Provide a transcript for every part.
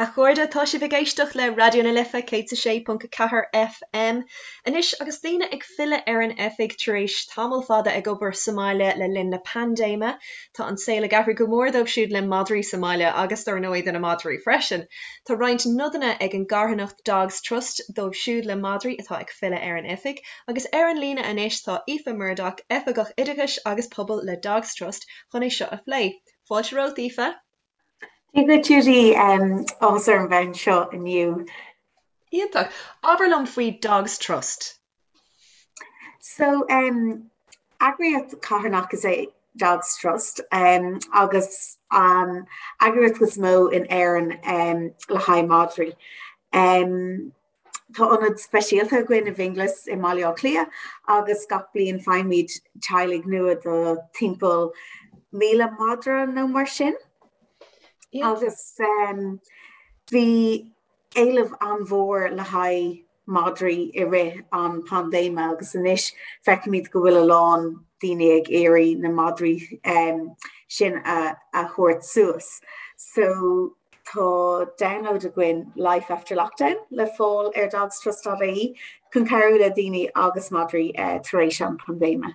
A chairde, tá sibh ag éisteacht le Raidió na Life 106.4 FM. Anois, agus daoine ag filleadh ar an oifig tar éis tamall fada ag obair sa mbaile le linn na paindéime, tá an saol ag athrú go mór dóibh siúd le madraí sa mbaile agus dar ndóigh do na madraí freisin. Tá roinnt nodanna ag an gcarthanacht Dogs Trust dóibh siúd le madraí atá ag filleadh ar an oifig agus ar an líne anois tá Aoife Murdock, Oifigeach Oideachais agus Pobail le Dogs Trust chun é seo a phlé. Fáilte romhat, Aoife. Dia duit Judy, áthas orm bheith anseo inniu. Iontach. Abair liom faoi Dogs Trust. So, eagraíocht carthanach is ea Dogs Trust agus an eagraíocht is mó in Éirinn le haghaidh madraí. Tá ionad speisialta againn i bhFionnghlas i mBaile Átha Cliath agus gach bliain faighimid teaghlaigh nua do timpeall 1,000 madra nó mar sin. Agus bhí éileamh an-mhór le haghaidh madraí i rith an paindéime agus anois feicimid go bhfuil a lán daoine ag iarraidh na madraí sin a thabhairt suas. So Tá download againn Life After Lockdown le fáil ar dogstrust.ie chun cabhrú le daoine agus madraí tar éis an paindéime.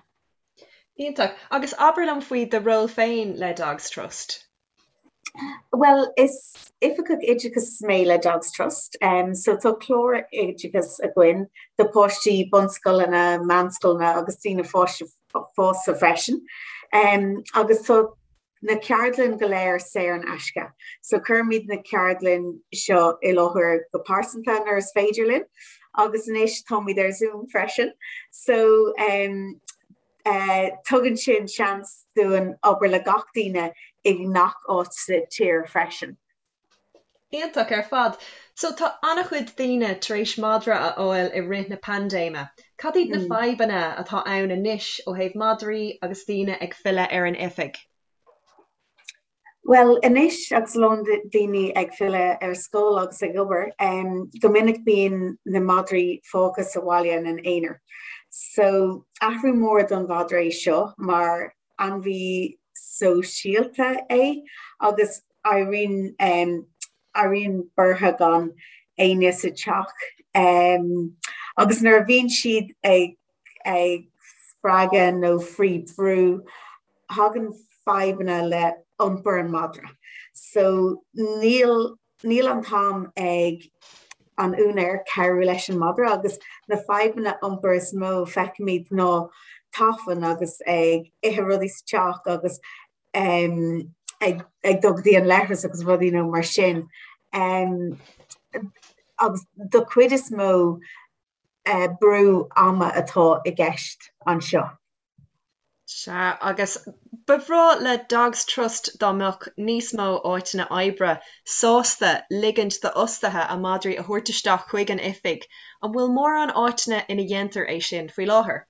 Iontach. Agus abair liom faoi do ról féin le Dogs Trust. Bhuel, is oifigeach oideachais mé le Dogs Trust. So tá clár oideachais againn do páistí bunscoileanna, meánscoileanna agus daoine fásta freisin. Agus tá na ceardlann go léir saor in aisce. So cuirimid na ceardlann seo i láthair go pearsanta nuair is féidir linn agus anois táimid ar Zoom freisin. So um, uh, tugann sin seans dúinn obair le gach duine i ngach áit sa tír freisin. Iontach ar fad. So tá an-chuid daoine tar éis madra a fháil i rith na paindéime. Cad iad na fadhbanna atá ann anois ó thaobh madraí agus daoine ag filleadh ar an oifig? Bhuel, anois agus a lán daoine ag filleadh ar scoil agus ag obair, go minic bíonn na madraí fágtha sa bhaile ina n-aonar. So athrú mór don mhadra é seo mar ainmhí sóisialta é agus éiríonn éiríonn buartha gan éinne sa teach agus nuair a bhíonn siad ag ag spreagadh nó faoi bhrú thagann fadhbanna le iompar an mhadra. So níl Níl an t-am ag an úinéir cabhrú leis an madra agus na fadhbanna iompair is mó feicimid ná tafann agus ag ithe rudaí sa teach agus ag ag dul go dtí an leithreas agus rudaí nó mar sin. Agus do chuid is mó brú ama atá i gceist anseo. Sea, agus ba bhreá le Dogs Trust dá mbeadh níos mó áiteanna oibre sásta ligint d'fhostaithe a madraí a thabhairt isteach chuig an oifig. An bhfuil mórán áiteanna ina dhéantar é sin faoi láthair?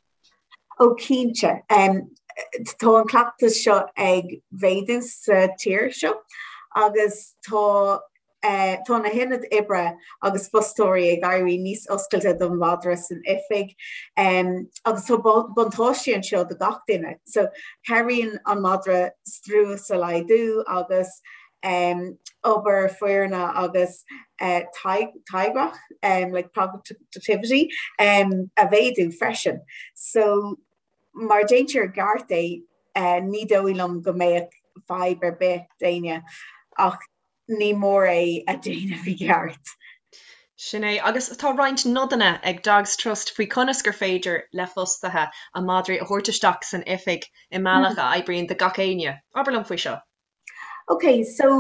Ó cinnte. Tá an cleachtas seo ag mhéadú sa tír seo agus tá Tá na hionaid oibre agus fostóirí ag éirí níos oscailte don mhadra san oifig agus tá buntáistí anseo do gach duine. So cabhraíonn an madra strus a laghdú agus obair foirne agus táirgeacht like productivity a mhéadú freisin. So mar déantar i gceart é ní dóigh liom go mbeadh fadhb ar bith d'éinne ach ní mór é a dhéanamh i gceart. Sin é. Agus tá roinnt nodanna ag Dogs Trust faoi conas gur féidir le fostaithe a madraí a thabhairt isteach san oifig i mbealach a oibríonn do gach éinne. Abair liom faoi seo. Ok, so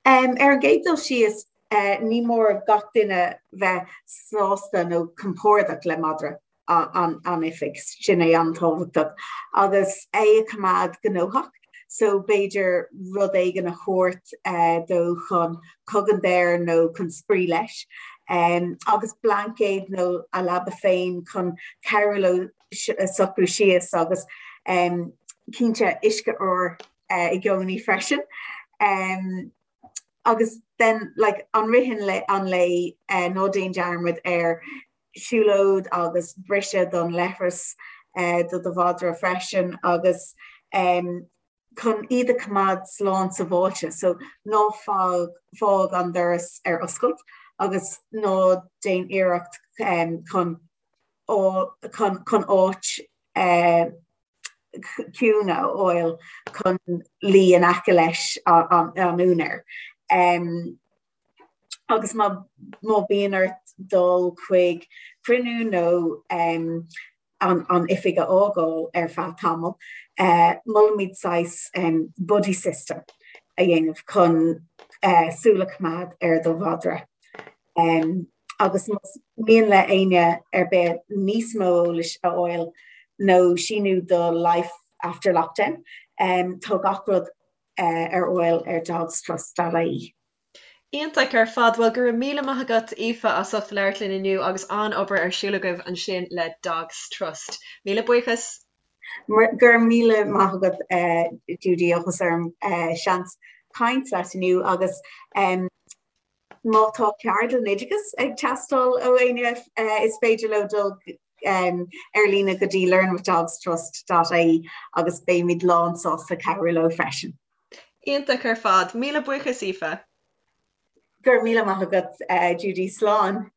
um, ar an gcéad dul síos, uh, ní mór gach duine bheith sásta nó compordach le madra. an oifig, sin é an-tábhachtach, agus é a choimeád gnóthach, so b'fhéidir rud éigin a thabhairt dó chun cogaint air nó chun spraoi leis, agus blaincéad nó a leaba féin chun cabhrú leo socrú síos agus cinnte uisce úr i gcónaí freisin. Agus then like i rith an lae ná déan dearmad ar siúlóid agus briseadh don leithreas do do mhadra freisin agus. Chun iad a choimeád slán sábháilte, so ná fág fág an doras ar oscailt agus ná déan iarracht chun chun áit ciúin a fháil chun luí in aice leis an úinéir. Agus má bhíonn ort dul chuig cruinniú nó an oifig a fhágáil ar feadh tamaill, molaimid saghas buddy system a dhéanamh chun súil a choimeád ar do mhadra. Agus más mian le éinne ar bith níos mó eolais a fháil nó síniú do Life After Lockdown, tá gach rud ar fháil ar dogstrust.ie. Iontach ar fad. Bhuel, go raibh míle maith agat, Aoife, as ucht labhairt linn inniu agus an-obair ar siúl agaibh ansin le Dogs Trust. Míle buíochas. Go raibh míle maith agat, Judy, áthas orm seans caint leat inniu agus má tá ceardlann oideachais ag teastáil ó éinne is féidir leo dul ar líne go dtí learnwithdogstrust.ie agus beimid lán sásta cabhrú leo freisin. Iontach ar fad. Míle buíochas, Aoife. Go raibh míle maith agat, Judy. Slán.